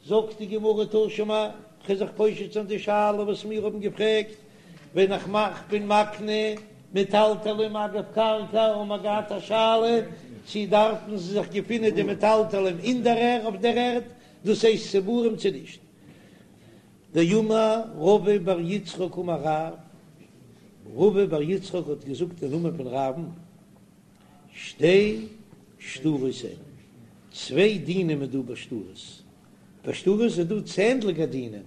זאגט די גמרא תא שמע, כ'וועל זיך פושט זיין די שאלה וואס מיר האבן געפרעגט, ווען איך מאך בין מקנה מטלטלים אגב קרקע האבן מיר געהאט א שאלה צי דארפן זיי זיך געפינען די מטלטלים אין דער ערד אויף דער ערד, דאס הייסט צבורים צו נישט. דאמר רבא בר יצחק אמר רב, רבא בר יצחק האט געזאגט אין נאמען פון רב'ן, שתי שטרות הן, צוויי דינים איז דא ביי שטרות, ביי שטרות איז דא צענדליגע דינים,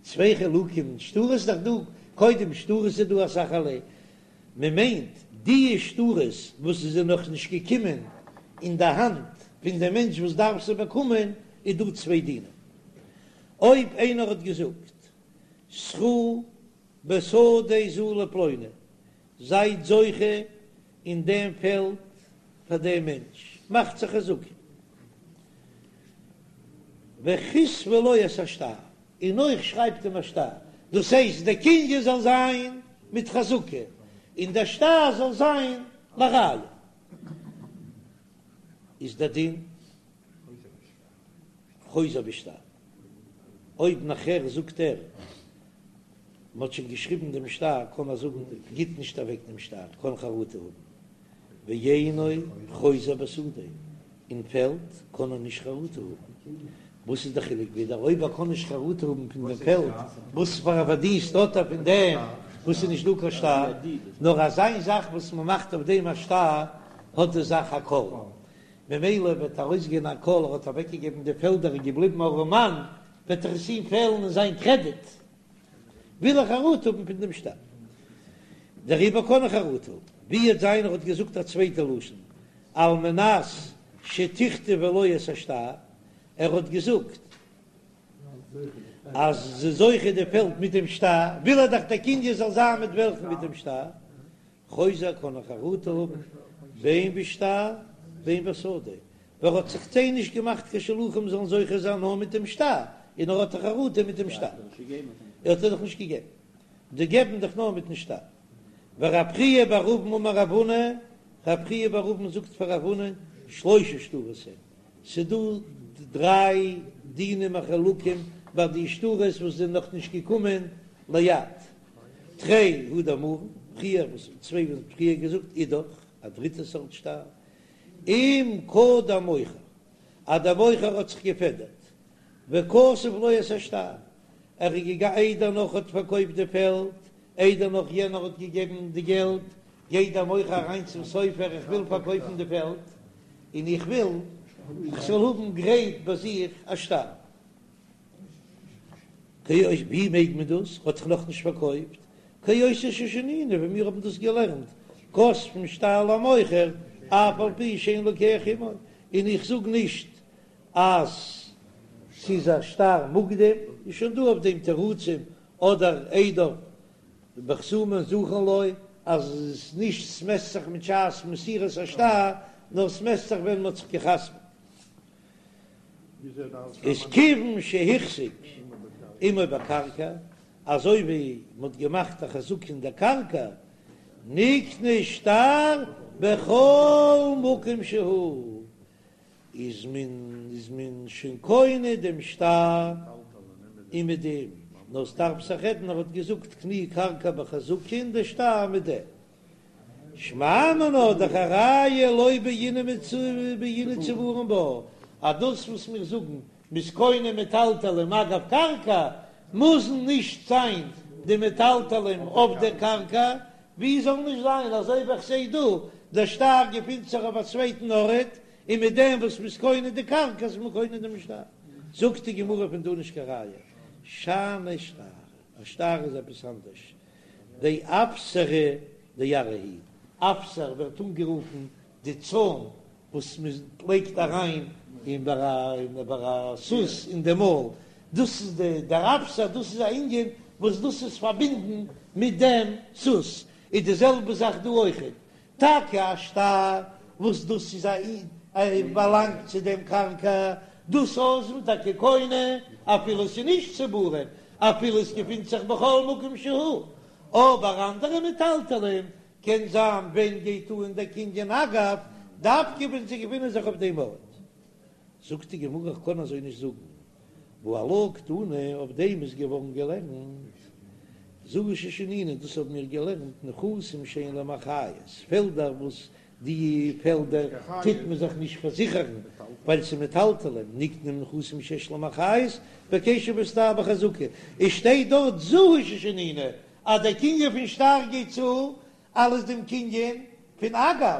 צוויי חילוקים, שטרות איז דאך דא, קודם שטרות איז דא אסאך ערליי, מען מיינט די שטרות וואס עס איז נאך נישט געקומען אין די האנט פון די מענטש וואס דארף זיי באקומען, איז דא צוויי דינים, אויב איינער האט געזאגט זכו בשדה זו לפלוני, זייט זוכה אין דעם פעלד פאר דעם מענטש, מאכט זיך חזקה, וכתבו לו את השטר, און אויך שרייבט אים א שטר, דאס הייסט דער קנין זאל זיין מיט חזקה, און דער שטר זאל זיין לראיה, איז דער דין חוזר בשטר, אויב נאכער זאגט ער מ'האט שוין געשריבן דעם שטר קען ער זאגן גיט נישט אוועק דעם שטר, קען חרטה האבן, ואינו חוזר בשדה, אין פעלד קען ער נישט חרטה האבן, וואס איז די חילוק ווידער אויב ער קען נישט חרטה האבן פון דעם פעלד, וואס פאר א פארדינסט האט ער פון דעם וואס איז נישט דא קיין שטר, נאר אזא זאך וואס מ'מאכט אויף דעם א שטר האט די זאך א קול, ממילא וועט ארויסגיין א קול ער האט אוועקגעגעבן די פעלדער און געבליבן ארעמאן, וועט דאך עס אים פעלן אין זיין קרעדיט, וויל ער חרטה האבן פון דעם שטר, דעריבער קען ער חרטה האבן. ווי וועט זיין ער האט געזאגט א צווייטע לשון, על מנת שתכתבו לו את השטר, ער האט געזאגט אז זיי זוכה די פעלד מיט דעם שטר, וויל ער דאך דער קנין זאל זיין מיט וועלכן מיט דעם שטר, חוזר קען ער חרטה האבן בין בשטר בין בשדה, ווייל ער האט זיך זיי נישט געמאכט קיין שלוחים זאלן זוכה זיין נאר מיט דעם שטר, און ער האט דאך חרטה מיט דעם שטר, ער האט דאך נישט געגעבן, די געבן דאך נאר מיטן שטר. ורב חייא בר אבין אמר רב הונא, רב חייא בר אבין זאגט פאר רב הונא, שלשה שטרות הן, ס'דא דריי דינים החלוקים ביי די שטרות וואס זענען נאך נישט געקומען ליד, תרי הא דאמרן, פריער וואס צוויי וואס מ'האט פריער געזאגט אידך, א דריטע סארט שטר, אם קדם מוכר, אז דער מוכר האט זיך געפעדערט, וכתב לו את השטר, ער איז געגאנגען איידער נאך האט פארקויפט די פעלד, איידער נאך יענער האט געגעבן די געלט, גייט דער מוכר אריין צום סופר איך וויל פארקויפן די פעלד, און איך וויל איך זאל האבן גרייט ביי זיך א שטר. ווי מעג מען דאס? האט זיך נאכנישט פארקויפט, כאותה ששנינו, ווי מיר האבן דאס געלערנט, כותבין שטר למוכר אף על פי שאין לוקח עמו, און איך זאג נישט אז ס'איז א שטר מוקדם, איז שוין דא אויף דעם תירוצים, אדער עדיו בחתומים זכין לו, אז עס נישט ס'מעסט זיך מיט שעת מסירת השטר, נאר ס'מעסט זיך ווען מ'האט זיך געחתמ'ט. איז כיוון שהחזיק עמו בקרקע, אזוי ווי מ'האט געמאכט א חזקה אין דער קרקע, נקנה שטר בכל מקום שהוא, איז מען איז מען שוין קונה דעם שטר און מיט דעם, נאר ס'דארף זיך רעדן ער האט געזאגט קני קרקע בחזקה און דער שטר מיט דעם. שמע מינה דאך א ראיה לא בעינן בעינן צבורים בה, אז דאס וואס מיר זאגן מ'איז קונה מטלטלים אגב קרקע, מוזן נישט זיין די מטלטלים אויף דער קרקע, ווי זאל נישט זיין אזוי ווי איך זעה דא, דער שטר געפינט זיך אויף א צווייטן ארט, און מיט דעם וואס מ'איז קונה די קרקע איז מען קונה דעם שטר. זאגט די גמרא פון דא נישט קיין ראיה, שאני שטר, א שטר איז עפעס אנדערש, דאפסרא דארעא הוא, אפסר ווערט אנגערופן די צוים וואס מען לייגט אריין אין ביי א סוס אין די מויל, דאס איז די דער אפסר, דאס איז א ענין וואס דאס איז פארבינדן מיט דעם סוס, איז די זעלבע זאך דא אויכעט, טאקע א שטר וואס דאס איז א באלאנגט צו דעם קרקע, דאס איז מען טאקע קונה אפילו עס איז נישט צבורים, אפילו עס געפינט זיך בכל מקום שהוא, אבער אנדערע מטלטלים קען זיין ווען גייט אן דער קנין אגב, דווקא ווען זיי געפינען זיך אויף דעם ארט. זאגט די גמרא איך קען אזוי נישט זאגן, והא עלה קתני, אויף דעם איז געווארן געלערנט זו היא ששנינו, דאס האבן מיר געלערנט נכסים שאין להם אחריות, פעלדער וואס די פעלדער טוט מען זיך נישט פארזיכערן ווייל ס'איז מטלטלים, נקנים נכסים שיש להם אחריות בכסף שבשטר בחזקה, עס שטייט דארט זו היא ששנינו אז דער קנין פון שטר גייט צו אלס דעם קנין פון אגב,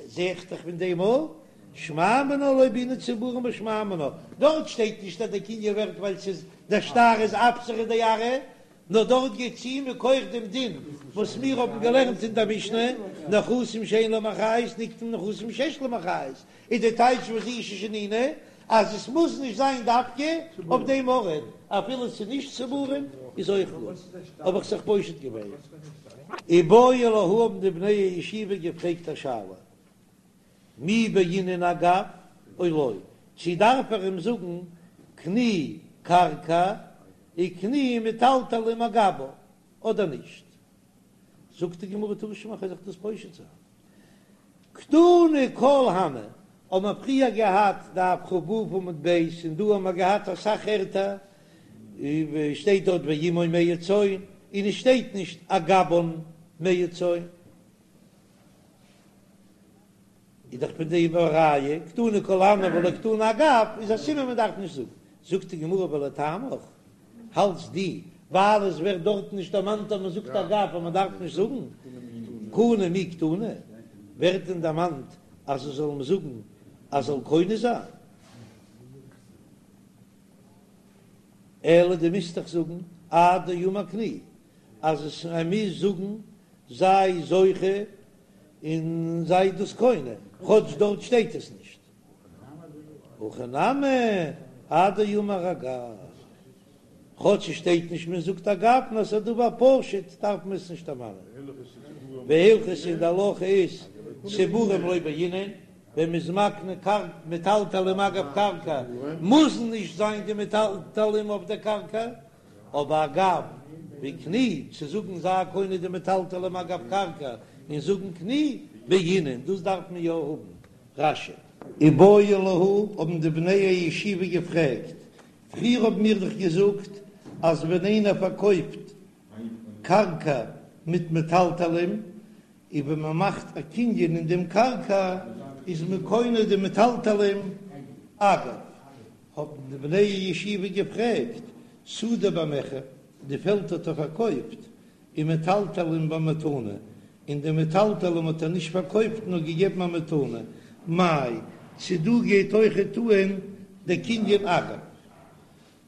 זע איך דאך פון דעם אויך, שמע מינה לא בעינן צבורים בשמע מינה, דארט שטייט נישט אז דער קנין ווערט ווייל ס'איז דער שטר איז אפסריה דארעא, נאר דארט גייט צו מכח דעם דין וואס מיר האבן געלערנט אין דער משנה, נכסים שאין להם אחריות נקנים נכסים שיש להם אחריות, איז די טייטש וואס זו היא ששנינו אז עס מוז נישט זיין דווקא אויף דעם ארט, אפילו ס'איז נישט צבורים איז אויך גוט, האב איך זיך פושט געווען. איבעיא להו האבן די בני הישיבה געפרעגט א שאלה, מי בעינן אגב או לא, צו דארף ער אים זאגן קני קרקע וקני מטלטלים אגבה אדער נישט? זאגט די גמרא תא שמע כ'וועל זיך דאס פושט זיין. קתני כל הני, האבן מיר פריער געהאט דף כ"ו עמוד ב' און דא האבן מיר געהאט אסאך ערטער ווי שטייט דארט ועמו מאה צאן און עס שטייט נישט אגבן מאה צאן. איז דאך פון דעם א ראיה, קתני כל הני ולא קתני אגב, איז א סימן מען דארף נישט זאגן. זאגט די גמרא ולטעמיך, האלטסט דו, ווייל עס ווערט דארטן נישט דערמאנט אז מען זאגט אגב אז מען דארף נישט זאגן, קנה מי קתני, ווערט דען דערמאנט אז עס זאל מען זאגן אז זאל קונה זיין? אלא דו מוזט דאך זאגן עד דאמר קני, אז עס ער מוז זאגן זיי זוכה און זיי דאס קונה, כאטש דארט שטייט עס נישט. הכא נמי עד דאמר אגב, כאטש עס שטייט נישט מען זאגט אגב נאר עס איז א דבר פשוט דארף מען עס נישט דערמאנען. והלכתא און די הלכה איז צבורים לא בעינן, ווען מען איז מקנה קרקע מטלטלים אגב קרקע מוזן נישט זיין די מטלטלים אויף דער קרקע, אבער אגב וקני צו זאגן זיי קונה די מטלטלים אגב קרקע און זאגן קני בעינן דאס דארף מען יא האבן. רש"י. איבעיא להו האבן די בני הישיבה געפרעגט, פריער האבן מיר דאך געזאגט אז ווען איינער פארקויפט קרקע מיט מטלטלים און ווען מען מאכט א קנין אין דעם קרקע איז מען קונה די מטלטלים אגב, האבן די בני הישיבה געפרעגט, שדה במכר, די פעלד האט ער פארקויפט, ומטלטלין במתנה, און די מטלטלים האט ער נישט פארקויפט נאר געגעבן א מתנה, מאי, צו דא גייט אויכעט אן דער קנין אגב?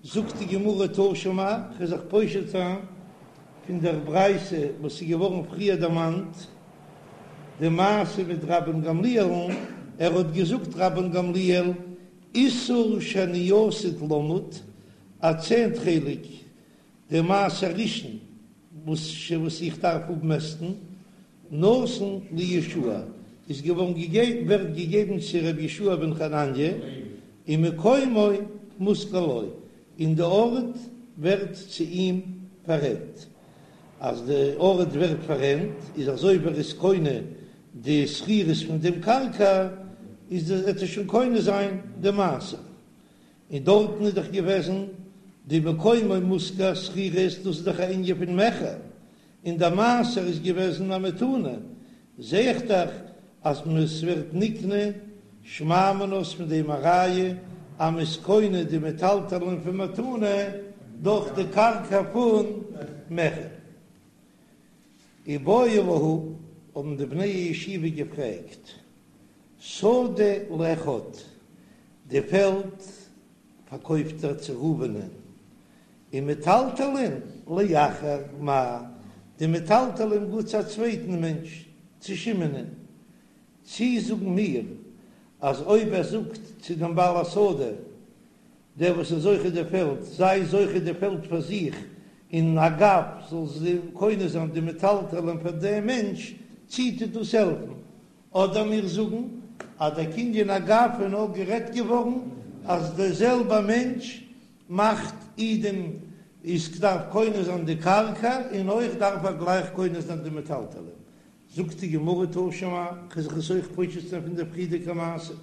זאגט די גמרא תא שמע, כ'וועל זיך פושט זיין פון דער ברייתא וואס איז געווארן פריער דערמאנט, די מעשה מיט רבן גמליאל'ן, ער האט געזאגט רבן גמליאל, עישור שאני עתיד למוד, א צענט חלק די מעשר ראשון וואס וואס איך דארף אפמעסטן, נתון ליהושע איז געווארן געגעבן ווערט געגעבן צו ר' יהושע בן חנניה, ומקומו מושכר לו, און די ארט ווערט צו אים פאררענט, אז די ארט ווערט פאררענט איז אזוי ווי ער איז קונה די שכירות פון דעם קרקע איז וועט ער שוין קונה זיין די מעשר, און דארטן איז דאך געוועזן די מקומו מושכר שכירות, דאס איז דאך א ענין פון מכר, און די מעשר איז געוועזן א מתנה, זע איך דאך אז ס'ווערט נקנה שמע מינה איז פון דעם א ראיה אז מ'איז קונה די מטלטלין פון מתנה דורך די קרקע פון מכר. איבעיא להו, האבן די בני הישיבה געפרעגט, שדה לאחד, די פעלד פארקויפט ער צו ראובנ'ען, ומטלטלין לאחר, מאי, די מטלטלין גייט צו א צווייטן מענטש, צו שמעונ'ען, צי זאגן מיר אז אויב ער זאגט צו דעם בעל השדה, דער וואס איז זוכה די פעלד, זיי זוכה די פעלד פאר זיך, און אגב זאל זי קונה זיין די מטלטלין פאר דעם מענטש, צי טוט דאס העלפן? אדער מיר זאגן אז דער קנין אגב איז נאר גערעדט געווארן אז דער זעלבע מענטש מאכט אי דעם איז דארף קונה זיין די קרקע און אויך דארף ער גלייך קונה זיין די מטלטלין. זאגט די גמרא תא שמע, כ'וועל זיך עס אויך פושט זיין פון דער פריערדיגע מעשה.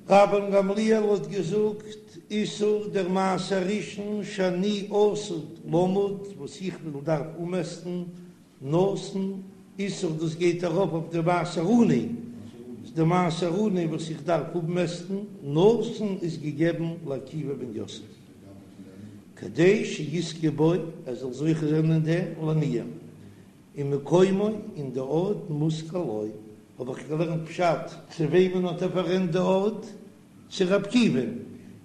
רבן גמליאל האט געזאגט, עישור דער מעשר ראשון שאני עתיד למוד וואס איך וויל דארף אנמעסטן נתון עישור דאס גייט ארויף אויף די מעשר עני, די מעשר עני וואס איך דארף אפמעסטן נתון איז געגעבן לעקיבא בן יוסף כדי שיזכה בו ער זאל זוכה זיין אין דעם לעניים ומקומו און די ארט מושכר לו האב איך געלערנט פשט צו וועמען האט ער פאררענט די ארט? צו ר' עקיבא,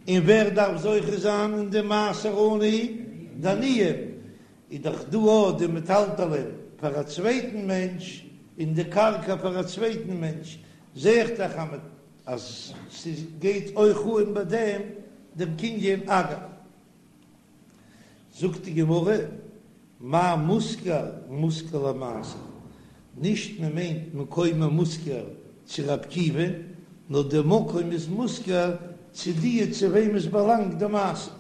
און ווער דארף זוכה זיין אין די מעשר עני? די עניים, איז דאך דא אויך די מטלטלין פאר א צווייטן מענטש און די קרקע פאר א צווייטן מענטש, זע איך דאך אז ס'גייט אויך אן ביי דעם דעם קנין אגב. זאגט די גמרא, מאי מושכר מושכר למעשר, נישט מען מיינט מקומו מושכר צו ר' עקיבא, נאר די מקום איז מושכר צו די צו וועם עס באלאנגט די מעשר.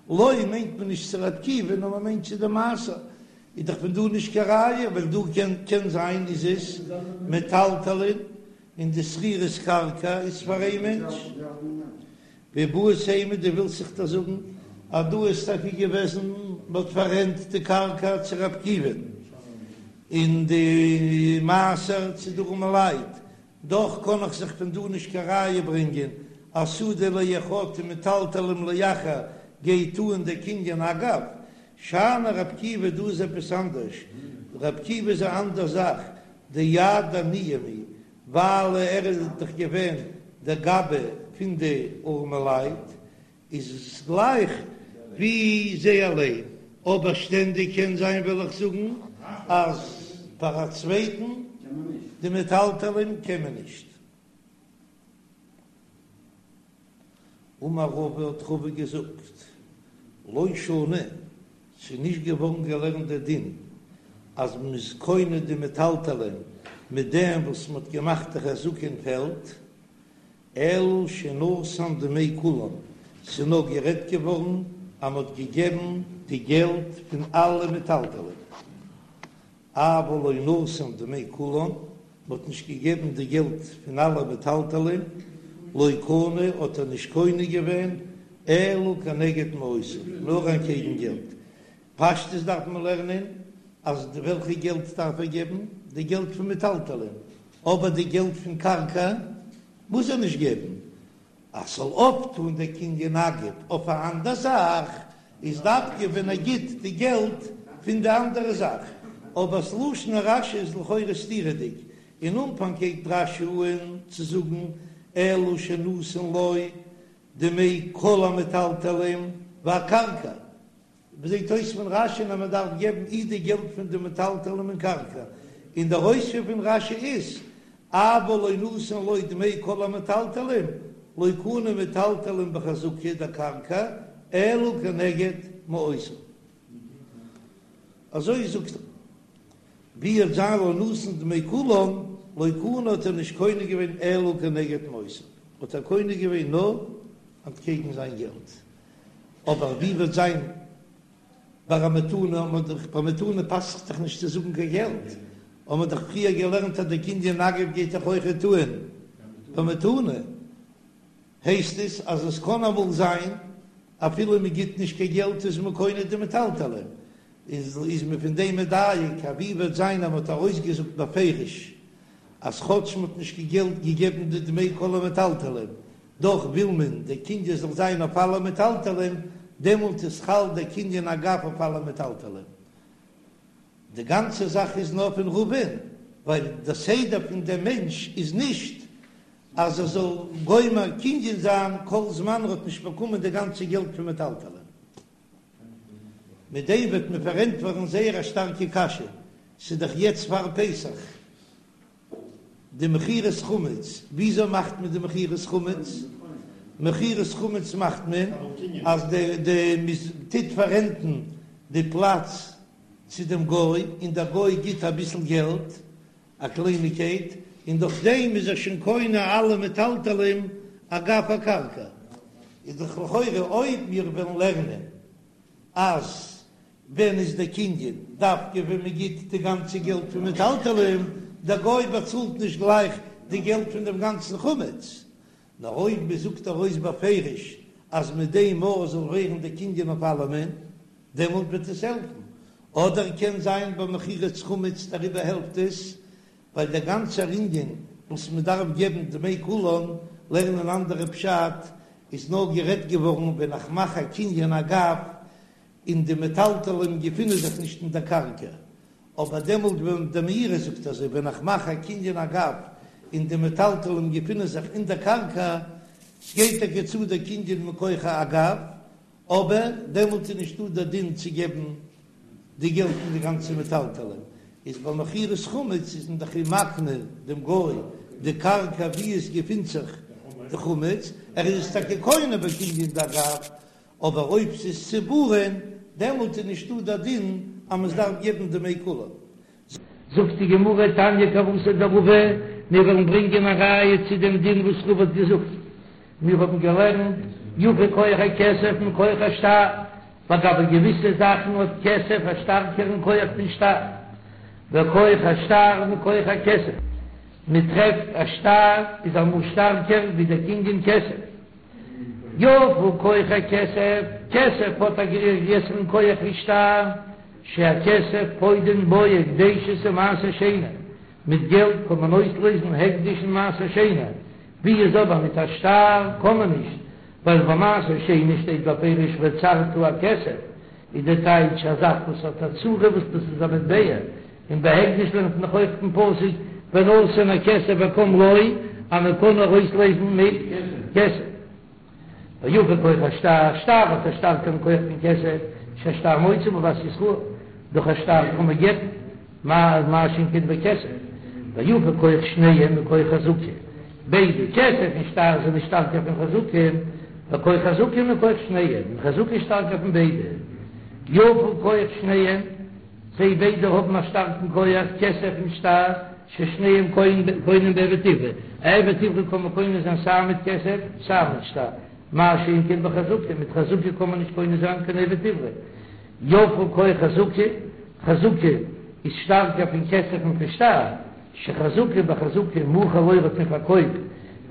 לו מיינט מען נישט צו ר' עקיבא נאר מען מיינט צו די מעשר, איז דאך פון דא נישט קיין ראיה, ווייל דא קען קען זיין איז עס מטלטלין און די שכירות קרקע איז פאר איין מענטש. ואיבעית אימא דו ווילסט זיך דאך זאגן אז דא איז טאקע געוועזן מען האט פאררענט די קרקע צו ר' עקיבא'ן און די מעשר צו די ארעמע לייט, דאך קען איך זיך פון דא נישט קיין ראיה ברענגען אז שדה לאחד ומטלטלין לאחר גייט אן דער קנין אגב, שאני ר' עקיבא דא איז עפעס אנדערש, ר' עקיבא איז א אנדער זאך, דיד עניים הוא, ווייל ער איז דאך געווען דער גבאי פון די ארעמעלייט, איז עס גלייך ווי זיי אליין, אבער שטענדיג קען זיין וועל איך זאגן אז פאר א צווייטן די מטלטלין קען מען נישט. אמר רבא האט רבא געזאגט, לא שנו, ס'איז נישט געווארן געלערנט דער דין אז מ'איז קונה די מטלטלין מיט דעם וואס מ'האט געמאכט די חזקה אין פעלד, אלא שנתן דמי כולן, ס'איז נאר גערעדט געווארן אז מ'האט געגעבן די געלט פון אלע מטלטלין. אבל לא נתן דמי כולן, מ'האט נישט געגעבן די געלט פון אלע מטלטלין, לא קנה האט ער נישט קונה געווען, אלא כנגד מעותיו, נאר אנטקעגן געלט. פשטות דארף מען לערנען אז וועלכע געלט דארף ער געבן? די געלט פון מטלטלין, אבער די געלט פון קרקע מוז ער נישט געבן, אז ס'זאל אויפטון דער קנין אגב אויף א אנדער זאך, איז דווקא ווען ער גיט די געלט פון די אנדערע זאך. אבער ס'לשון רש"י איז לכאורה סתירה'דיג, אין אנפאנג הייבט רש"י אן צו זאגן אלא שנתן לו דמי כל המטלטלין והקרקע, זעט אויס פון רש"י אז מען דארף געבן אי די געלט פון די מטלטלים און קרקע, און דער אויספיר פון רש"י איז אבל לא נתן לו דמי כל המטלטלים, לא קנה מטלטלין בחזקה דקרקע אלא כנגד מעותיו. אזוי זאגט ער. ווי וועט זיין לא נתן דמי כולן, לא קנה האט ער נישט קונה געווען אלא כנגד מעותיו, האט ער קונה געווען נאר אנטקעגן זיין געלט. אבער ווי וועט זיין ביי א מתנה, האט מען דאך ביי מתנה פאסט זיך דאך נישט צו זאגן קיין געלט, האט מען דאך פריער געלערנט אז די קנין אגב גייט דאך אויכעט אן ביי מתנה, הייסט עס אז עס קען אמאל זיין אפילו מען גיט נישט קיין געלט איז מען קונה די מטלטלין, איז איז מען פון דעם מדייק אז ווי וועט זיין אז מען האט ארויסגעזאגט בפירוש אז כאטש מען האט נישט קיין געלט געגעבן די דמי כל המטלטלין דאך וויל מען דער קנין זאל זיין אויף אלע מטלטלין, דעמאלט איז חל דער קנין אגב אויף אלע מטלטלין. די גאנצע זאך איז נאר פון רבא'ן, ווייל די סדר פון דעם מענטש איז נישט אז ער זאל גומר קנין זיין כל זמן ער האט נישט באקומען די גאנצע געלט פון מטלטלין. מיט דעם וועט מען פארענטפערן זייער א שטארקע קשיא, ס'איז דאך יעצט פאר פסח, די מכירת חמץ, וויאזוי מאכט מען די מכירת חמץ? מכירת חמץ מאכט מען אז די די מען טוט פאררענטן די פלאץ צו דעם גוי, און דער גוי גיט אביסל געלט, א קלייניגקייט, און דורך דעם איז ער שוין קונה אלע מטלטלים אגב הקרקע. איז דאך לכאורה אויב מיר וועלן לערנען אז ווען איז דער קנין דווקא ווען מען גיט די גאנצע געלט פון מטלטלים, דער גוי באצאלט נישט גלייך די געלט פון דעם גאנצן חמץ. נאר אויב מען זאגט ארויס בפירוש אז מיט דעם מאל זאל ווערן די קנין אויף אלעמען, דעמאלט וועט עס העלפן, אדער קען זיין ביי מכירת חמץ דעריבער העלפט עס, ווייל דער גאנצער ענין וואס מען דארף געבן דמי כולן, לערנען אנדערע פשט, איז נאר גערעדט געווארן ווען איך מאך א קנין אגב און די מטלטלים געפינען זיך נישט אין דער קרקע, אבער דעמאלט ווען דער מאירי זאגט אזוי ווען איך מאך א קנין אגב און די מטלטלים געפינען זיך אין דער קרקע, ס'גייט טאקע צו דער קנין מכח אגב, אבער דעמאלט איז נישטא דער דין צו געבן די געלט פון די גאנצע מטלטלים, איז ביי מכירת חמץ איז מען דאך אים מקנה דעם גוי די קרקע וואו עס געפינט זיך די חמץ, ער איז עס טאקע קונה בקנין דאגב, אבער אויב ס'איז צבורין דעמאלט איז נישטא דער דין אז מען דארף געבן דמי כולן. זאגט די גמרא תניא כוותיה דרבא, מיר וועלן ברענגען א ראיה צו דעם דין וואס רבא האט געזאגט, מיר האבן געלערנט יפה כח הכסף מכח השטר, לגבי געוויסע זאכן האט כסף א שטארקערן כח פון שטר, וכח השטר מכח הכסף, מען טרעפט א שטר איז אמאל שטארקער ווי דער קנין כסף. יפה כח הכסף, כסף האט א גרעסערן כח ווי שטר, שהכסף פודין בו הקדשות ומעשר שני, מיט געלט קען מען אויסלעזן הקדש און מעשר שני, ווי איז אבער מיט א שטר קען מען נישט, ווייל ביי מעשר שני שטייט בפירוש וצרת הכסף, איז די טייטש א זאך וואס האט א צורה וואס דאס איז א מטבע, און ביי הקדש לערנט מען דאך אויך פון פסוק ונתן הכסף וקם לו אז מען קען נאר אויסלעזן מיט כסף. ויפה כח השטר, שטר האט א שטארקערן כח פון כסף, שהשטר מוציא בבת ישראל, דורך א שטר קען מען גט'ן, מה שאין כן בכסף. ויפה כח שניהם מכח חזקה, ביידע כסף און שטר זענען שטארקער פון חזקה, וכח חזקה מכח שניהם, און חזקה איז שטארקער פון ביידע. יפה כח שניהם. זיי ביידע האבן א שטארקן כח, כסף און שטר, ששניהם קונים בעבד עברי, א עבד עברי קען מען קונה זיין סיי מיט כסף סיי מיט שטר, מה שאין כן בחזקה, מיט חזקה קען מען נישט קונה זיין קיין עבד עברי. יפה כח חזקה, חזקה איז שטארקער פון כסף און פון שטר, שחזקה בחזקה מכר לו האט מען פארקויפט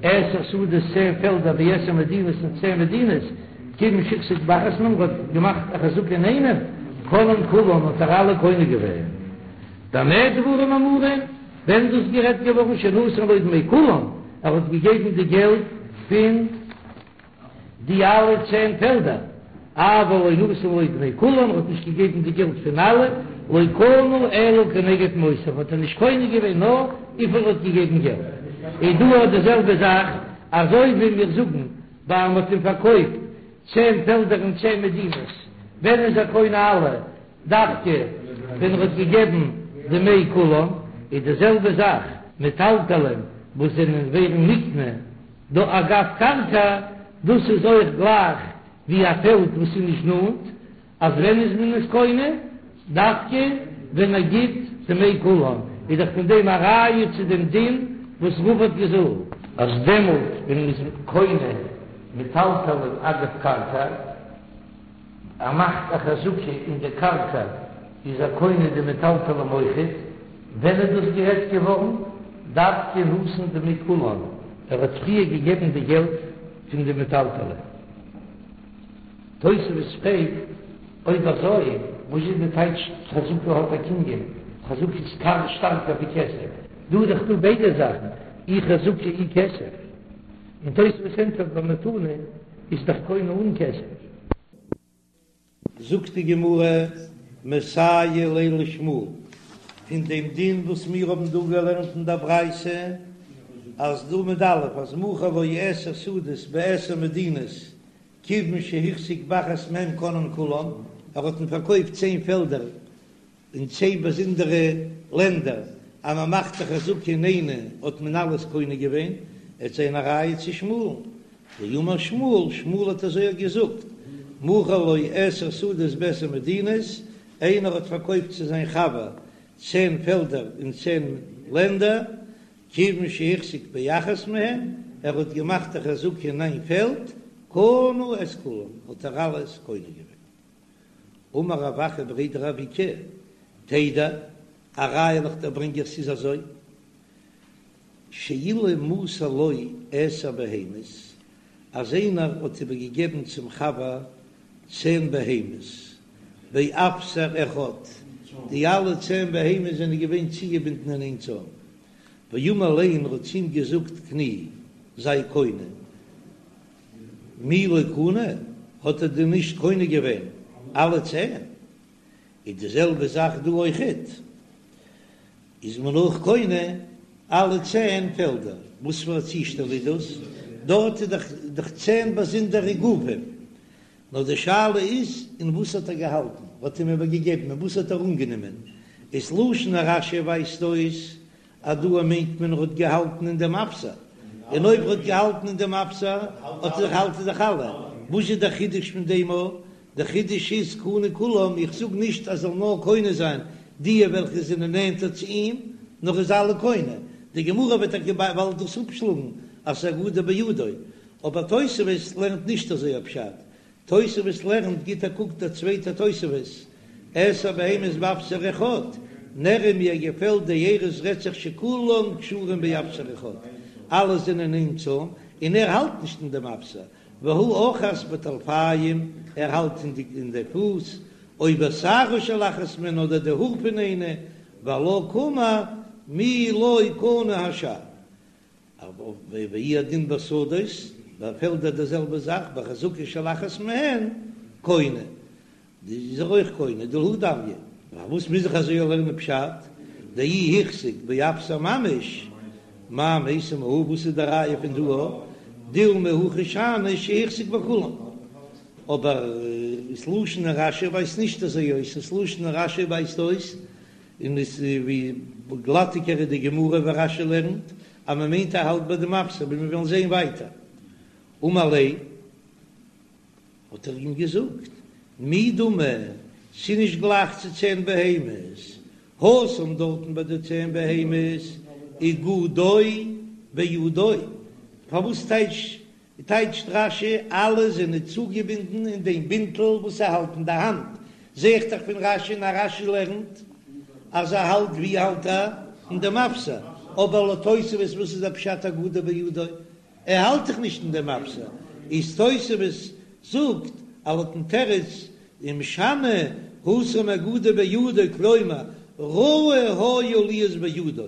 עשר שדות צען פעלדער בעשר מדינות אין צען מדינות, כיוון שהחזיק באחת מהן האט געמאכט א חזקה אין איינעם, קנאן כולן האט ער אלע קונה געווען. במה דברים אמורים, ווען איז דאס גערעדט געווארן שנתן לו דמי כולן, ער האט געגעבן די געלט פון. די אלע צען פעלדער, אבל לא נתן לו דמי כולן, האט נישט געגעבן די געלט פון אלע, לא קנה אלא כנגד מעותיו, האט ער נישט קונה געווען נאר וויפיל ער האט געגעבן געלט. איז דא אויך די זעלבע זאך, אזוי ווי מיר זאגן ביי מ'האט אים פארקויפט צען פעלדער אין צען מדינות, ווען איז ער קונה אלע? דווקא ווען ער האט געגעבן דמי כולן, איז די זעלבע זאך מטלטלין וואס זענען ווערן נקנה דא אגב קרקע, דאס איז אויך גלייך ווי א פעלד וואס איז נישט נאנט, אז ווען איז מען עס קונה? דווקא ווען ער גיט דמי כולן, איז דאך פון דעם א ראיה צו דעם דין וואס רבא האט געזאגט. אז דעמאלט ווען מען איז קונה מטלטלין אגב קרקע, ער מאכט א חזקה אין די קרקע איז ער קונה די מטלטלים אויכעט, ווען איז דאס גערעדט געווארן? דווקא נתן דמי כולן, ער האט פריער געגעבן די געלט פון די מטלטלים. תוספות פרעגט, אויב אזוי וואס איז די טייטש חזקה האט א קנין, חזקה איז גאר שטארקער ווי כסף, דא איז דאך דא ביידע זאכן, אי חזקה אי כסף, און תוספות ענטפערט במתנה איז דאך קונה אן כסף. זאגט די גמרא, מסייע ליה לשמואל, פון דעם דין וואס מיר האבן דא געלערנט אין דער ברייתא, אז דא עמוד א', אז מכר לו עשר שדות בעשר מדינות, כיוון שהחזיק באחת מהן קנאן כולן, ער האט אים פארקויפט צען פעלדער אין צען באזונדערע לענדער, אז מען מאכט א חזקה אין איינע האט מען אלעס קונה געווען, עט זיין א ראיה צו שמואל'ן, דאמר שמואל, שמואל האט אזוי געזאגט, מכר לו עשר שדות בעשר מדינות, איינער האט פארקויפט צו זיין חבר צען פעלדער אין צען לענדער, כיוון שהחזיק באחת מהן, ער האט געמאכט א חזקה אין איין פעלד, קנה את כולן, האט ער אלעס קונה געווען. אמר רב אחא בריה דרב איקא, תדע, א ראיה וועל איך דיר ברענגען ס'איז אזוי, שאילו מסר לו עשר בהמות. אז איינער האט איבערגעגעבן צום חבר צען בהמות באפסר אחד, די אלע צען בהמות זענען געווען צוגעבינדן אין איין צוים, ואמר ליה און ער האט צו אים געזאגט קני, זיי קונה, מי לא קנה, האט ער דען נישט קונה געווען אלע צען? איז די זעלבע זאך דא אויכעט, איז מען אויך קונה אלע צען פעלדער, וואס פאר א צושטעל איז דאס? דארט איז דאך דאך צען באזונדערע גופים, נאר די שאלה איז אין וואס האט ער געהאלטן, האט אים איבערגעגעבן, אין וואס האט ער אנגענומען, איז לשון רש"י ווייזט אויס אז דא מיינט מען ער האט געהאלטן אין דעם אפסר, און אויב ער האט געהאלטן אין דעם אפסר האט ער דאך האלט ער דאך אלע, וואס איז דער חידוש פון דעם א? דער חידוש איז קנה כולם, איך זאג נישט אז זאל נאר קונה זיין די וועלכע זענען נענטער צו אים, נאר איז אלע קונה, די גמרא וועט טאקע באלד דאס אפשלאגן אז ס'איז אגודו בידו, אבער תוספות לערנט נישט אזוי א פשט, תוספות לערנט, גיט א קוק דער צווייטער תוספות, עשר בהמות באפסר אחד, נראה מיר געפעלט דאירש רעדט זיך שכולם קשורים באפסר אחד, אלע זענען אין צוים, און ער האלט נישט אין דעם אפסר, והוא אחז בטלפיים, ער האלט אין די אין די פוס, או בשערה של אחת מהן אדער די האר פון איינע, ועלה קאמר מי לא קנה השאר. והוא הדין בשדות, ביי פעלדער די זעלבע זאך, בחזקה של אחת מהן קונה, די איז ער אויך קונה, דלהא דמיא, פארוואס מוז איך אזוי לערנען פשט, דאי החזיק באפסר ממש, מאי מייתי מהא, וואס איז די ראיה פון דא, דילמא הכא שאני שהחזיק בכולן, אבער ס'לשון רש"י ווייזט נישט אזוי אויס, ס'לשון רש"י ווייזט אויס און עס איז ווי גלאטיגער איז די גמרא ווי רש"י לערנט אז מען מיינט ער האלט ביי דעם אפסר ווי מיר וועלן זען ווייטער. אמר ליה האט ער אים געזאגט מי דמי ס'איז נישט גלייך צו צען בהמות, התם דארטן ביי די צען בהמות אגודו בידו, פארוואס טייטש טייטשט רש"י, אלע זענען צוגעבינדן אין דעם בינטל וואס ער האלט אין די האנט, זע איך דאך פון רש"י און אז רש"י לערנט אז ער האלט ווי האלט ער? אין דעם אפסר, אבער לויט תוספות וואס איז דער פשט אגודו בידו? ער האלט דאך נישט אין דעם אפסר, איז תוספות זאגט אז לויטן תירוץ ומשני התם אגודו בידו כלומר ראוי היה להיות בידו,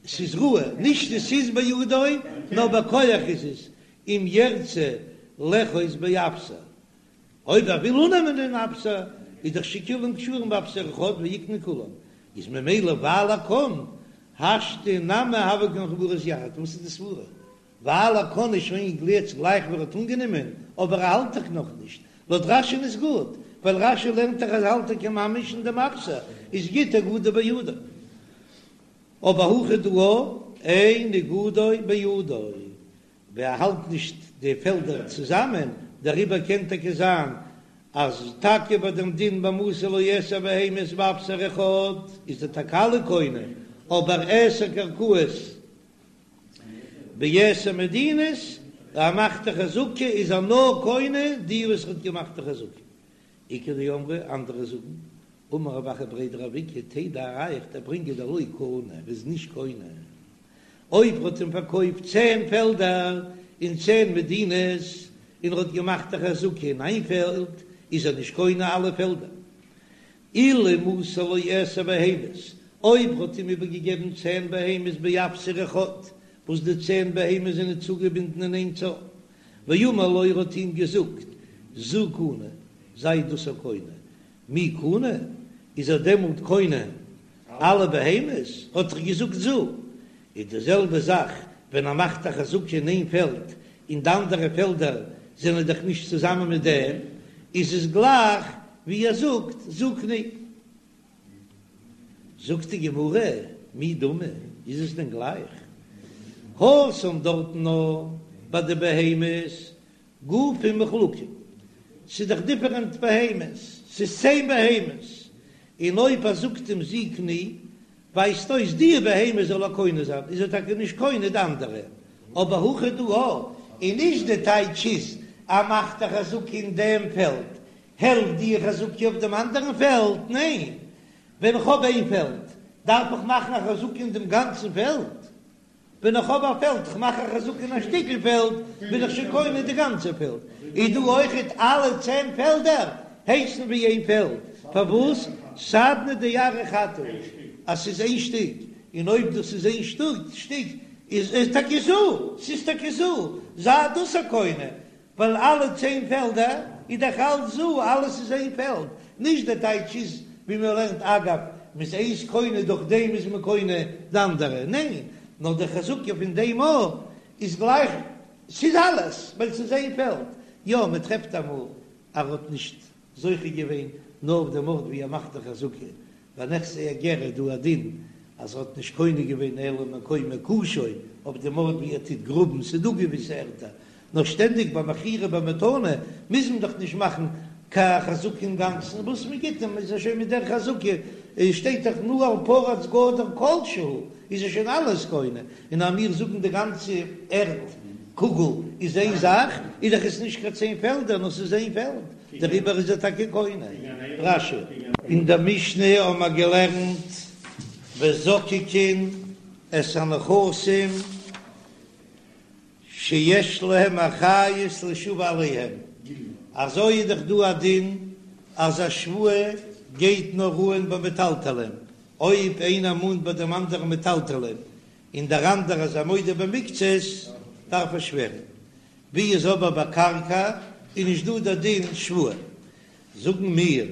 ס'איז ראוי, נישט עס איז בידו, נאר בכח איז עס, אם ירצה לאחוז באפסר, אויב ער וויל אננעמען דעם אפסר, איז דאך שכולם קשורים באפסר אחד ויקנה כולם, איז ממילא ווייל ער קען, השתא נמי הוו כמחוברות יחד, וואס איז די סברה? ווייל ער קען איז שוין גלייך גלייך ווי ער האט אנגענומען, אבער ער האלט דאך נאכנישט, לויט רש"י'ן איז גוט, ווייל רש"י לערנט דאך אז האלט טאקע ממש אין דעם אפסר, איז גוט אגודו בידו. אבער הכא דא אין אגודו בידו, ווען ער האלט נישט די פעלדער צוזאמען, דעריבער קען טאקע זיין אז טאקע ביי דעם דין במסר לו עשר בהמות באפסר אחד איז ער טאקע אלע קונה, אבער עשר קרקעות בעשר מדינות, ער מאכט א חזקה איז ער נאר קונה די וואס ער האט געמאכט די חזקה. איכא דאמרי, אנדערע זאגן, אמר רב אחא בריה דרב איקא, תדע א ראיה איך דיר ברינגען דלא קנה, ער איז נישט קונה. אויב ער האט אים פארקויפט צען פעלדער אין צען מדינות, און ער האט געמאכט א חזקה אין איין פעלד, איז ער נישט קונה אלע פעלדער. אילו מסר לו עשר בהמות, אויב ער האט אים איבערגעגעבן צען בהמות באפסר אחד, וואס די צען בהמות זענען צוגעבינדן אין איין צוים, ואמר לו ער האט אים געזאגט, זו קנה, זיי דאס א קונה, מי קנה, איז ער דעמאלט קונה אלע בהמות, האט ער געזאגט זו, איז די זעלבע זאך ווען ער מאכט א חזקה אין איין פעלד און די אנדערע פעלדער זענען דאך נישט צוזאמען מיט דעם, איז עס גלייך ווי ער זאגט זו קני. זאגט די גמרא, מי דמי, איז עס דען גלייך? התם דארטן נאר ביי די בהמות גופים מחולקים, ס'איז דאך דיפערענט בהמות, ס'איז צען בהמות, און אויב ער זאגט אים זו קני, ווייזט אויס די בהמה זאל ער קונה זיין, איז ער טאקע נישט קונה די אנדערע, אבער הכא דא און נישט די טייטש איז ער מאכט א חזקה אין דעם פעלד, העלפט די חזקה אויף דעם אנדערן פעלד? ניין, ווען איך האב איין פעלד דארף איך מאכן א חזקה אין דעם גאנצן פעלד. ווען איך האב א פעלד, כ'מאך א חזקה אין א שטיקל פעלד, בין איך שוין קונה די גאנצע פעלד. איז דא אויכעט אלע צען פעלדער הייסן ווי איין פעלד? פארוואס סדנא דארעא חד הוא אז ס'איז איין שטיק? און אויב דאס איז איין שטיק איז עס טאקע זו, ס'איז טאקע זו, זיי דאס א קונה, ווייל אלע צען פעלדער איז דאך אלץ זו, אלעס איז איין פעלד, נישט דער טייטש איז ווי מען לערנט אגב, מ'איז איינס קונה דורך דעם איז מען קונה די אנדערע, ניין, נאר די חזקה פון דעם א איז גלייך, ס'איז אלעס, ווייל ס'איז איין פעלד, יא מען טרעפט אמאל אז ער האט נישט זוכה געווען נאר אויף דעם ארט ווי ער מאכט די חזקה, ביי נכסי הגר איז דא א דין אז ער האט נישט קונה געווען אלא מקום מקושו אויף דעם ארט ווי ער טוט גראבן, ס'איז דא געוויסע ערטער, נאר שטענדיג ביי מכירה במתנה מוז מען דאך נישט מאכן קיין חזקה אינגאנצן, וואס מען גיט אים איז ער שוין מיט דער חזקה, שטייט דאך נעל פרוץ גדר כל שהוא, איז ער שוין אלעס קונה, און אז מיר זאגן די גאנצע ערד קוגל איז איין זאך, איז דאך עס נישט קיין צען פעלדער נאר ס'איז איין פעלד. דעריבער איז ער טאקע קונה. רש"י. אין דער משנה האבן מיר געלערנט וזוקקין את הנכסים שיש להם אחריות לשבוע עליהם, אזוי איז דאך דא א דין אז א שבועה גייט נאר אן ביי מטלטלין, אויב איינער מאנט ביי דעם אנדערן מטלטלין און דער אנדערער איז א מודה במקצת דארף ער שווערן, ווי איז אבער ביי קרקע איז נישט דא דער דין שבועה, זאגן מיר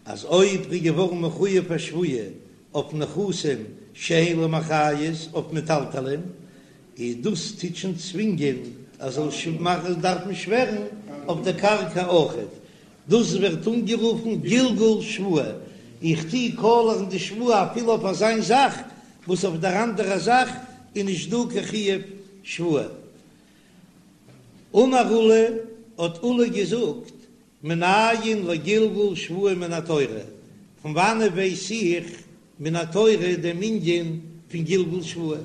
אז אויב ר'איז געווארן מחויב א שבועה אויף נכסים שאין להם אחריות אויף מטלטלין, איז דאס טוט שוין צווינגען אז זאל מאכן דארפן שווערן אויף דער קרקע אויכעט, דאס ווערט אנגערופן גלגול שבועה, איך טו קאלערן די שבועה אפילו אויף אזיין זאך וואס אויף דער אנדערע זאך איז נישט דא קיין חיוב שבועה. אמר עולא, האט עולא געזאגט, מנין לגלגול שבועה מן התורה, פון וואנעט ווייס איך מן התורה דעם ענין פון גלגול שבועה,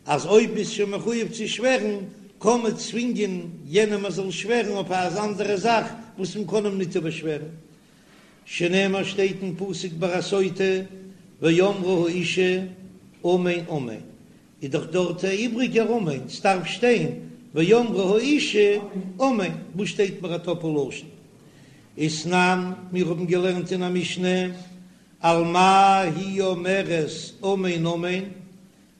אז אויב ביסט שוין מחויב צו שווערן, קען מען צווינגען יענעם ער זאל שווערן אויף אן אנדערע זאך וואס מען קען אים ניט איבערשווערן, שנאמר שטייט אין פסוק ביי א סוטה, ואמרה האשה אמן אמן, איז דאך דארט א איבריגער אמן, ס'דארף שטיין ואמרה האשה אמן, וואס שטייט מיר א טאפל לשון? ותנן, מיר האבן געלערנט אין א משנה, על מה היא אומרת אמן אמן,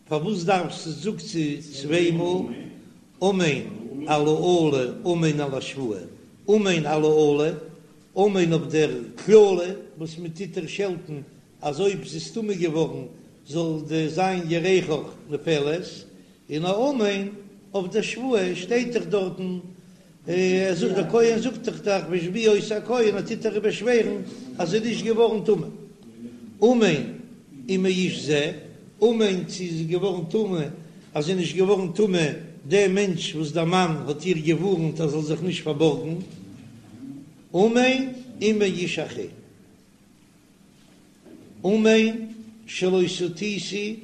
פארוואס דארף זי זאגט זי צוויי מאל אמן על האלה אמן על השבועה, אמן על האלה, אמן אויף דער קללה וואס מען טוט איר שעלטן אז אויב זי איז טמא געווארן זאל די זיין ירכך נופלת, און א אמן אויף די שבועה שטייט דאך דארטן, ער זאגט דער כהן זאגט דאך דאך והשביע אותה הכהן ער טוט איר באשווערן אז זי איז נישט געווארן טמא, אמן ומאיש זה, אמן צו זי איז געווארן טמא אז זי איז נישט געווארן טמא דער מענטש וואס דער מאן האט איר געווארנט אז זאל זיך נישט פארבארגן, אמן ומאיש אחר. אמן שלא סטיתי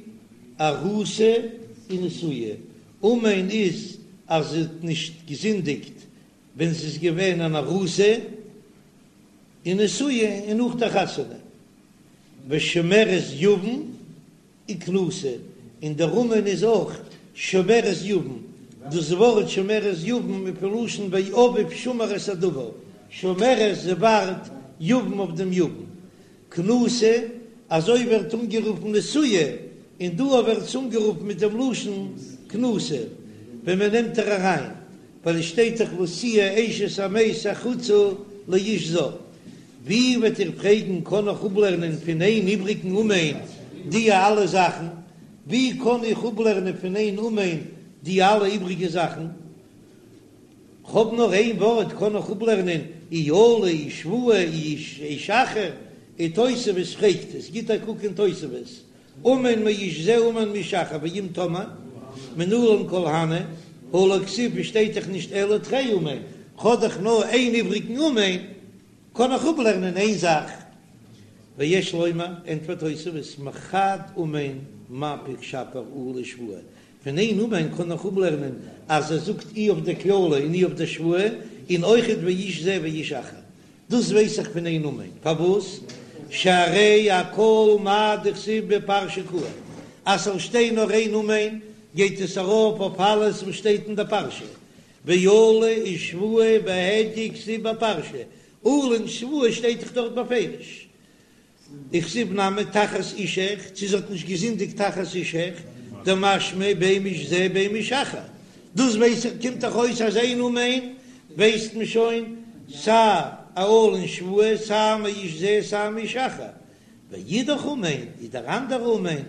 ארוסה ונשואה, אמן איז אז זי האט נישט געזינדיגט ווען זי איז געווען אן ארוסה און נשואה און נאך דער חתונה, ושומרת יבם וכנוסה, און דער אמן איז אויך שומרת יבם, דאס ווארט שומרת יבם איז פון לשון ואביו שמר את הדבר, שומרת זי ווארט יבם אויף דעם יבם, כנוסה, אזוי ווערט אנגערופן נשואה, און דא ווערט עס אנגערופן מיט דעם לשון כנוסה, ווען מען נעמט איר אריין, ווייל עס שטייט דאך לא תהיה אשת המת החוצה לאיש זר. ווי וועט איר פרעגן קען איך אפלערנען פון איין איבריגן אמן די אלע זאכן? ווי קען איך אפלערנען פון איין אמן די אלע איבריגע זאכן? כ'האב נאר איין ווארט קען איך אפלערנען אי אלה אי שבועה אי איש אחר, און תוספות פרעגט עס, גיט א קוק אין תוספות, אמן מאיש זה אמן מאיש אחר ואם תאמר מנלן כל הני הא לא כתיב שטייט דאך נישט אלא תרי אמן, כ'האב דאך נאר איין איבריגן אמן, קען איך אפלערנען איין זאך, ויש לומר, ענטפערט תוספות, מחד אמן מפיק שפיר אלה ושבועה, פון איין אמן קען איך אפלערנען אז ער זאגט אי אויף די קללה און אי אויף די שבועה, און אויכעט ואיש זה ואיש אחר. דאס ווייס איך פון איין אמן. פארוואס? שהרי אכל מה דכתיב בפרשה קאי, אז ס'זאל שטיין נאר איין אמן. גייט עס ארויף אויף אלעס וואס שטייט אין די פרשה, ואלה ושבועה בהדיא כתיב בפרשה, אלה און שבועה שטייט דאך דארט בפירוש. וכתיב נמי תחת אישך, צו זי האט נישט געזינדיגט תחת אישך, דמשמע בין מאיש זה בין מאיש אחר, דאס ווייס איך קומט דאך אויס אז איין אמן ווייסט מען שוין סיי א אלה און שבועה סיי מאיש זה סיי מאיש אחר, ואידך אמן איז דער אנדערע אמן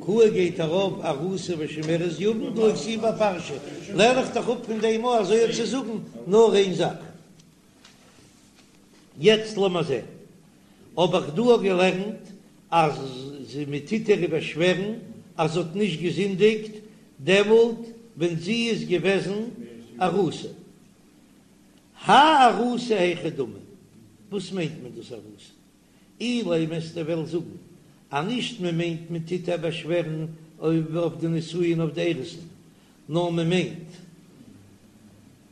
קאי גייט ארויף ארוסה ושומרת יבם דלא כתיב בפרשה, לערן איך דאך אפ פון דעם אויך אזוי צו זאגן נאר איין זאך. יעצט לאמיר זען. האב איך דא געלערנט אז מען טוט איר איבערשווערן אז זי האט נישט געזינדיגט דעמאלט ווען זי איז געוועזן ארוסה. האי ארוסה היכי דמי, וואס מיינט מען דאס ארוסה? אילימא וועסטו וועלן זאגן אז נישט מען מיינט מען טוט איר באשווערן אויף די נישואין אויף די אירוסין, נאר מען מיינט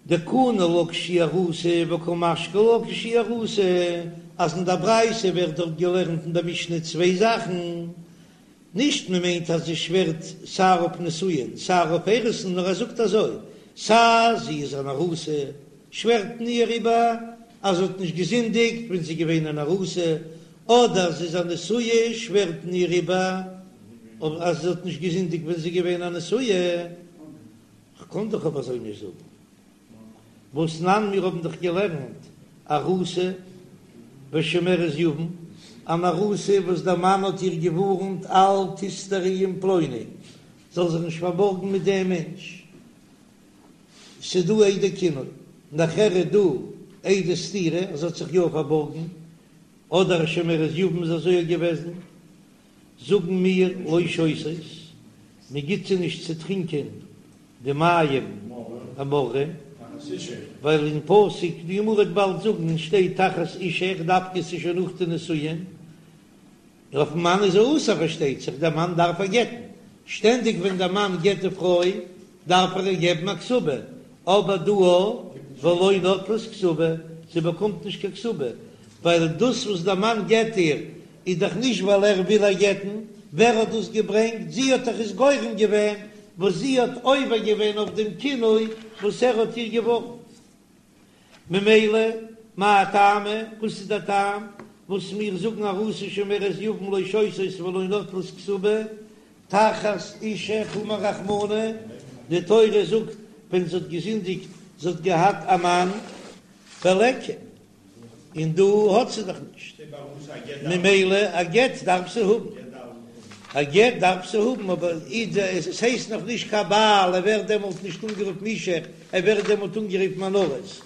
דקני לה כשהיא ארוסה וקא משקי לה כשהיא ארוסה, אז אין דער ברייתא ווערט דארט געלערנט אין דער משנה צוויי זאכן, נישט מען מיינט אז זי שווערט סיי אויף נישואין סיי אויף אירוסין, נאר ער זאגט אזוי, סיי זי איז אן ארוסה, שווערט מען איר איבער אז זי האט נישט געזינדיגט ווען זי איז געווען אן ארוסה, אדער זי איז א נשואה, שווערט מען איר איבער אז זי האט נישט געזינדיגט ווען זי איז געווען א נשואה. כ'קען דאך אבער אזוי נישט זאגן. והתנן מיר האבן דאך געלערנט ארוסה ושומרת יבם, אן ארוסה וואס דער מאן האט איר געווארנט אל תסתרי עם פלוני, זאל זיך נישט פארבארגן מיט דעם מענטש, ס'איז דא עדי קינוי, נאכער איז דא עדי סתירה אז זי האט זיך יא פארבארגן, אדער א שומרת יבם איז אזוי געוועזן. זאגן מיר לא שותות, מען גיט זיי נישט צו טרינקען די מים המרים, ווייל אין פסוק, די גמרא וועט באלד זאגן, שטייט תחת אישך, דווקא ס'איז שוין נאך די נישואין, אויפן מאן איז אסור פארשטייט זיך, דער מאן דארף איר גט'ן, שטענדיג ווען דער מאן גט די פרוי דארף ער איר געבן א כתובה, אבער דא ולא נוטלות כתובה, זי באקומט נישט קיין כתובה, ווייל דאס וואס דער מאן גט איר איז דאך נישט ווייל ער וויל איר גט'ן, ווער האט דאס געברענגט? זי האט דאך עס גורם געווען, וואס זי האט עובר געווען אויף דעם קינוי וואס ער האט איר געווארנט. ממילא, מאי טעמא, וואס איז דער טעם וואס מיר זאגן ארוסה ושומרת יבם לא שותות ולא נוטלות כתובה, תחת אישך אמר רחמנא, די תורה זאגט ווען זי האט געזינדיגט, זי האט געהאט א מאן, וליכא. און דא האט זי דאך נישט, ממילא א גט דארף זי האבן, א גט דארף זי האבן, אבער עס הייסט נאך נישט קיין בעל, ער ווערט דעמאלט נישט אנגערופן אישך, ער ווערט דעמאלט אנגערופן אן ארוס,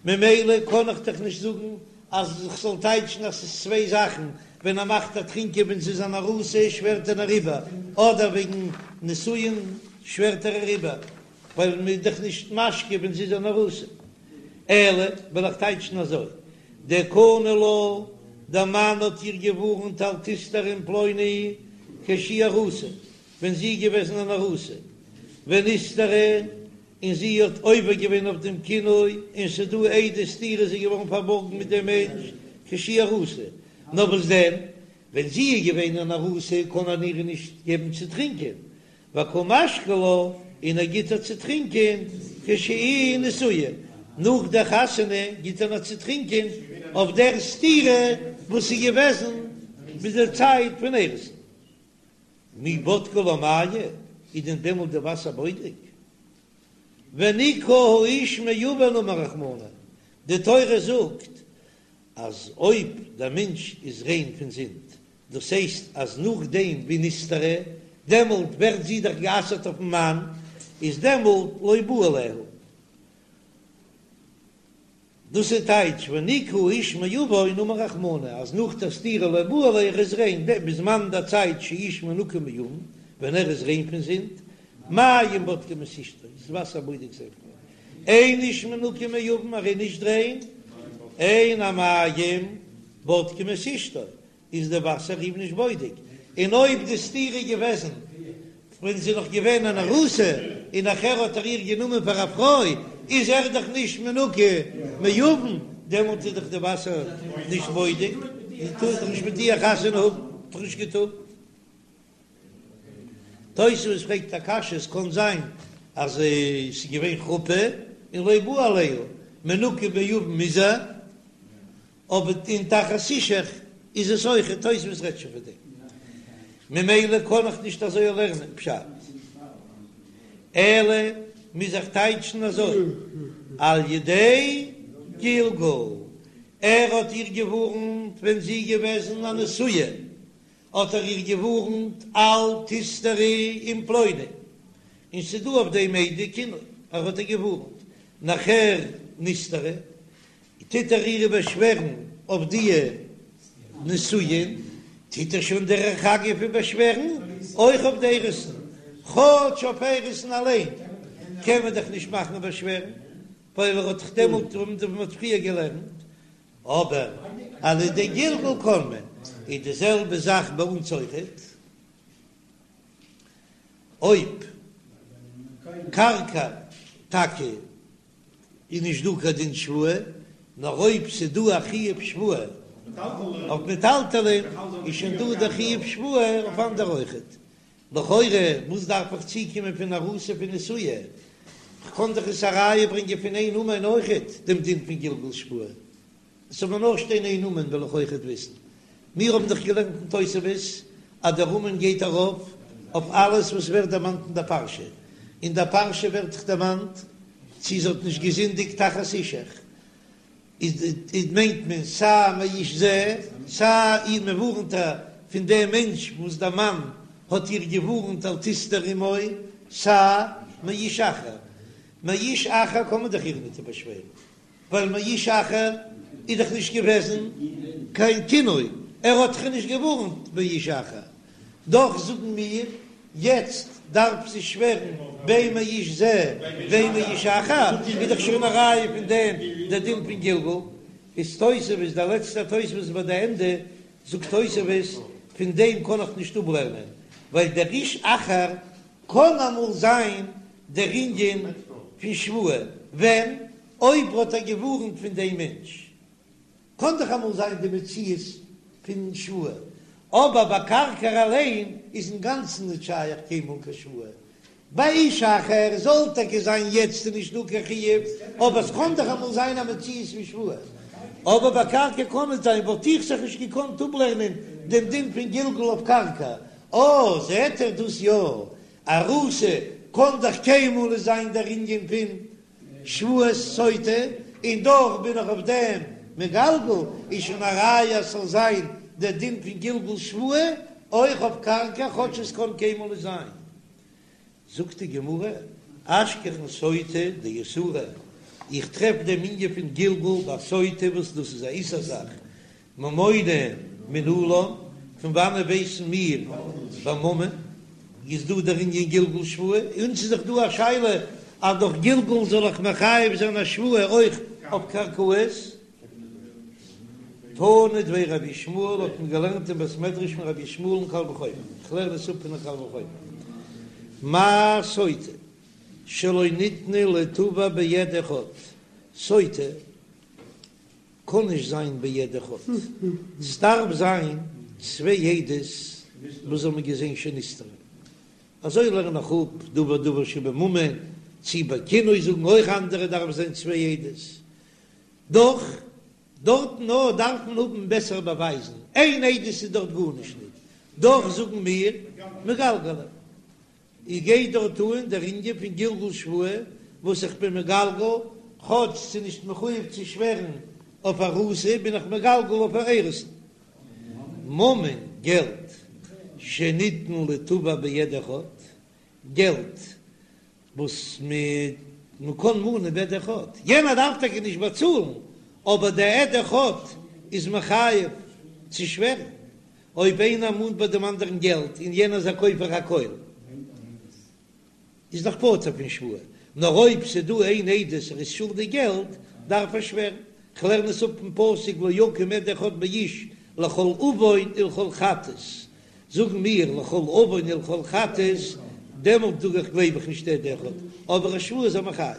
ממילא קען איך דאך נישט זאגן אז איך זאל טייטשן אז ס'איז צוויי זאכן, ווען ער מאכט איר טרינקען ווען זי איז אן ארוסה שווערט ער איר איבער, אדער וועגן נישואין שווערט ער איר איבער, ווייל מ'איז דאך נישט משקה ווען זי איז אן ארוסה. אלא וועל איך טייטשן אזוי, דקני לה, דער מאן האט איר געווארנט אל תסתרי עם פלוני כשהיא ארוסה, ווען זי איז געוועזן אן ארוסה, ונסתרה, און זי האט עובר געווען אויף דעם קינוי, און ס'איז דא עדי סתירה זי איז געווארן פארבארגן מיט דעם מענטש כשהיא ארוסה, נאר וואס דען, ווען זי איז געווען אן ארוסה קען ער איר נישט געבן צו טרינקען, וקא משקי לה, און ער גיט איר צו טרינקען כשהיא נשואה, נאך דער חתונה גיט ער איר צו טרינקען אויף דער סתירה וואס איז געוועזן ביז דער צייט פון אירוסין. מי בדקי לה מיא, איז דען דעמאלט די וואסער בודק? ונקה האיש מעון אמר רחמנא, די תורה זאגט אז אויב דער מענטש איז ריין פון זינד, דאס הייסט אז נאכדעם ווי נסתרה, דעמאלט ווערט זי דאך גע'אסר'ט אויפן מאן, איז דעמאלט לא בא עליה. דאס איז טייטש ונקה האיש מעון אמר רחמנא, אז נאך דער סתירה לא בא עליה ער איז ריין, בזמן דער צייט שהאיש מנוקה מעון, ווען ער איז ריין פון זינד, מים בודקים את אשתו, איז וואסער בודק זיין פרוי, אין איש מנוקה מעון, ער איז נישט ריין, אין המים בודקים את אשתו, איז די וואסער אים נישט בודק, און אויב די סתירה איז געוועזן ווען זי איז נאך געווען אן ארוסה און נאכער האט ער איר גענומען פאר א פרוי, איז ער דאך נישט מנוקה מעון, דעמאלט איז דאך די וואסער נישט בודק, און טאר דאך נישט מיט איר חתונה האבן, האט דאך נישט געטארט. תוספות פרעגט א קשיא, עס קען זיין אז ס'איז געווען חופה און לא בא עליה, מנוקה מעוון איז ער, אבער אין תחת אישך איז עס אויך, תוספות רעדט שוין פון דעם, ממילא קען איך נישט אזוי לערנען פשט, אלא מוז איך טייטשן אזוי, על ידי גלגול, ער האט איר געווארנט ווען זי איז געוועזן א נשואה, האט ער איר געווארנט אל תסתרי עם פלוני, און ס'דא אויף דעם עדי קינוי, ער האט איר געווארנט, נאכער נסתרה, טוט ער איר באשווערן אויף די נישואין, טוט ער שוין דרך אגב איר באשווערן אויך אויף די אירוסין, כאטש אויף אירוסין אליין קען מען דאך נישט מאכן באשווערן, ווייל ער האט דאך דעמאלט ווי מען האט פריער געלערנט, אבער על ידי גלגול קען מען, איז די זעלבע זאך ביי אונז אויכעט, אויב קרקע טאקע איז נישט דא קיין דין שבועה, נאר אויב ס'איז דא א חיוב שבועה אויף מטלטלין, איז שוין דא דער חיוב שבועה אויף אנדערע אויכעט. לכאורה וואס דארף איך צוקומען פון ארוסה פון נשואה? כ'קען דאך עס א ראיה ברענגען פון איין אומן אויכעט דעם דין פון גלגול שבועה. עס זאל מיר נאר שטיין איין אומן וועל איך אויכעט וויסן. מיר האבן דאך געלערנט אין תוספות אז דער אומן גייט ארויף אויף אלעס וואס ווערט דערמאנט אין דער פרשה. אין דער פרשה ווערט דאך דערמאנט צי זי האט נישט געזינדיגט תחת אישך, איז מיינט מען סיי מאיש זה, סיי איר מען ווארנט איר פון דעם מענטש וואס דער מאן האט איר געווארנט אל תסתרי עמו, סיי מאיש אחר. מאיש אחר קען מען דאך איר ניט באשווערן. ווייל מאיש אחר איז דאך נישט געוועזן קיין קינוי, ער האט דאך נישט געווארנט מאיש אחר, דאך זאגן מיר יעצט דארף זי שווערן בין מאיש זה בין מאיש אחר, איז דאך שוין א ראיה פון דעם דער דין פון גלגול, איז תוספות דער לעצטער תוספות ביי די ענדע זאגט תוספות פון דעם קען איך נישט אפלערנען ווייל דער איש אחר קען אמאל זיין דער ענין פון שבועה ווען אויב האט ער געווארנט פון דעם מענטש, קען דאך אמאל זיין די מציאות פון שבועה, אבער ביי קרקע אליין איז אינגאנצן נישט שייך קיינמאל קיין שבועה, ביי איש אחר זאל טאקע זיין יעצט איז נישט דא קיין חיוב, אבער עס קען דאך אמאל זיין א מציאות פון שבועה, אבער ביי קרקע קען נישט זיין, וואלט איך זיך נישט געקאנט אפלערנען דעם דין פון גלגול אויף קרקע, אה זעט ער דאס יא, ארוסה קען דאך קיינמאל נישט זיין דער ענין פון שבועת סוטה, און דאך בין איך אויף דעם מגלגל, איז שוין א ראיה אז ס'זאל זיין דער דין פון גלגול שבועה אויך אויף קרקע כאטש עס קען קיינמאל נישט זיין. זאגט די גמרא, אשכחן סוטה דאיסורא, איך טרעף דעם ענין פון גלגול ביי סוטה וואס דאס איז א איסור זאך, ממונא מנלן, פון וואנען ווייסן מיר ביי ממון איז דא דער ענין גלגול שבועה? אונז איז דאך דא א שאלה אז דורך גלגול זאל איך מחייב זיין א שבועה אויך אויף קרקעות? תנא דבי רבי ישמעאל האט מען געלערנט אין בית מדרש פון רבי ישמעאל אין קל וחומר, איך לערן עס אפ פון א קל וחומר, מה סוטה שלא ניתנה ליתבע בעד אחד, סוטה קען נישט זיין בעד אחד, ס'דארף זיין צוויי עדות וואס האבן געזען שנסתרה, אזוי לערן איך אפ דבר דבר שבממון, צי ביי קינוי זאגן אויך אנדערע דארף זיין צוויי עדות, דאך דארטן נאר דארף מען האבן בעסערע באווייזן, איין עדות איז דארט גארנישט ניט, דאך זאגן מיר מגלגלין. איך גיי דארט אן דער ענין פון גלגול שבועה וואס איך בין מגלגל, כאטש ס'איז נישט מחויב צו שווערן אויף ארוסה בין איך מגלגל אויף אירוסין. ממון, געלט, שניתן ליתבע בעד אחד, געלט וואס מען קען מאנען בעד אחד, יענער דארף טאקע נישט באצאלן, אבער דער עד אחד איז מחייב צו שווערן, אויב איינער מאנט ביי דעם אנדערן געלט און יענער איז א כופר הכל, איז דאך פטור פון שבועה, נאר אויב ס'איז דא איין עדות ער איז שולדיג געלט, דארף ער שווערן. כ'לערן עס אפ פון פסוק לא יקום עד אחד באיש לכל עון ולכל חטאת, זאגן מיר לכל עון ולכל חטאת, דעמאלט זאג איך גלייב איך נישט עד אחד, אבער א שבועה איז ער מחייב.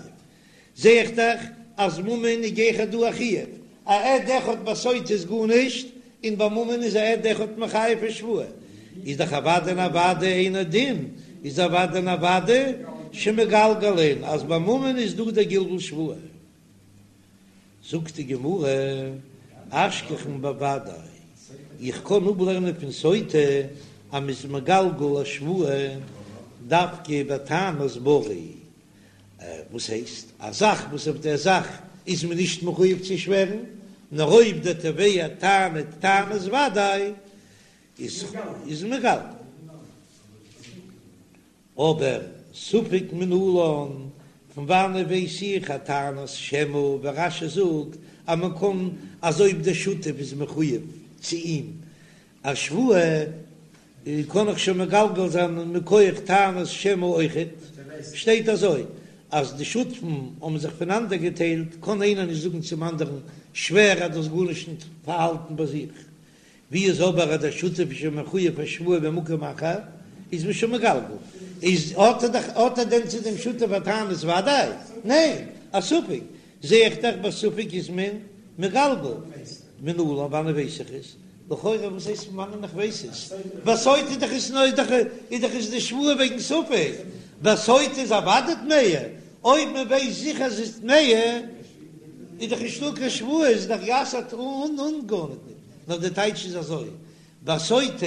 זע איך דאך אז ממון איז גיכער דא א חיוב, א עד אחד ביי סוטה איז גארנישט, און ביי ממון איז א עד אחד מחייב פון שבועה, איז דאך אוודאי און אוודאי אינו דין. איז אוודאי און אוודאי שמגלגלין אז ביי ממון איז דא דער גלגול שבועה. זאגט די גמרא, אשכחן בוודאי, איך קען אפלערנען פון סוטה אז מ'איז מגלגל א שבועה דווקא בטענת ברי, וואס הייסט, א זאך וואס אויף דער זאך איז מען נישט מחויב צו שווערן, נאר אויב דער תובע טענה'ט טענת וודאי איז מגלגל. אבער ספק מנלן, פון וואנעט ווייס איך א טענת שמא, ווי רש"י זאגט אז מען קען אז אויב דער שותף איז מחויב צו אים א שבועה קען איך שוין מגלגל זיין מכח טענת שמא אויכעט, שטייט אזוי אז די שותפים האבן זיך פונאנדער געטיילט קען איינער נישט זאגן צום אנדערן שווער אז דו האסט גארנישט נישט פארהאלטן ביי זיך, ווי איז אבער אז דער שותף איז שוין מחויב א שבועה במקום אחר, איז מען שוין מגלגל, איז האט ער דאך האט ער דען צו דעם שותף א טענת וודאי? ניין, א ספק, זע איך דאך ביי ספק איז מען מגלגל, מנלן וואנען ווייס איך עס? לכאורה וואס הייסט פון וואנען איך ווייס עס? ביי סוטה איז דאך עס נאר דאך איז דאך עס די שבועה וועגן ספק, ביי סוטה איז אוודאי טמאה, אויב מען ווייסט זיכער אז עס איז טמאה איז דאך נישטא קיין שבועה, איז דאך גע'אסר'ט אן אן גארניט ניט, נאר די טייטש איז אזוי, ביי סוטה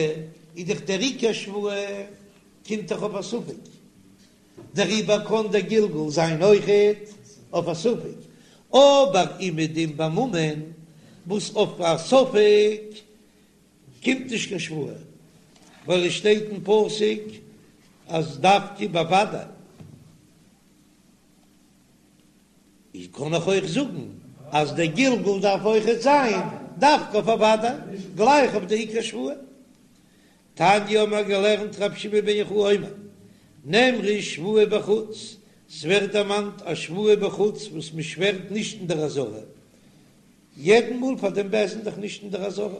איז דאך דער עיקר שבועה קומט דאך אויף א ספק, דעריבער קען דער גלגול זיין אויכעט אויף א ספק, אבער אומעדום ביי ממון וואס אויף א ספק קומט נישט קיין שבועה, ווייל עס שטייט אין פסוק אז דווקא בוודאי. איז קען איך אויך זאגן אז דער גלגול דארף אויכעט זיין דווקא אויף א וודאי, גלייך אויף די עיקר שבועה. תניא האבן מיר געלערנט רבי שמעון בן יוחאי אומר, נאמרה שבועה בחוץ, ס'ווערט דערמאנט א שבועה בחוץ וואס מ'שווערט נישט אין דער עזרה, יעדן מאל פאר דעם בית דין דאך נישט אין דער עזרה.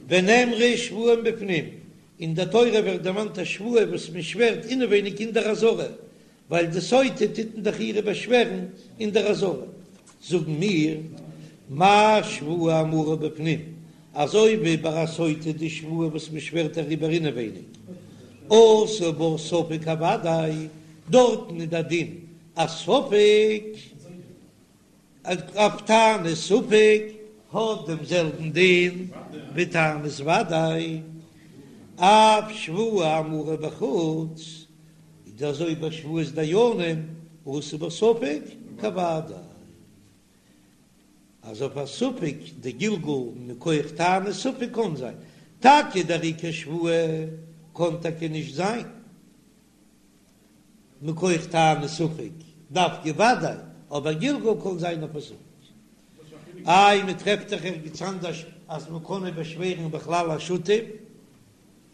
ונאמרה שבועה מבפנים, אין דער תורה ווערט דערמאנט א שבועה וואס מ'שווערט אינעווייניג אין דער עזרה, ווייל די סוטה טוט מען דאך אירע באשווערן אין דער עזרה, זאגן מיר, מה שבועה האמורה בפנים, אזוי ווי ביי א סוטה די שבועה וואס מען שווערט אריבער אינעווייניג, עשה בה ספק כוודאי, דארטן איז דער דין א ספק. אויף טענת ספק האט דעם זעלבן דין ווי טענת וודאי, אף שבועה האמורה בחוץ, איז אזוי ביי שבועת דיינים עשה בה ספק כוודאי, אז אויף א ספק די גלגול מכח טענת ספק קען זיין טאקע דער עיקר שבועה קען טאקע נישט זיין. מכח טענת ספק דווקא וודאי, אבער גלגול קען זיין אויף א ספק. איי מען טרעפט דאך ערגעץ אנדערש אז מען קען נישט באשווערן בכלל א שותף,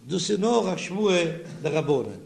דאס איז נאר א שבועה דרבנן.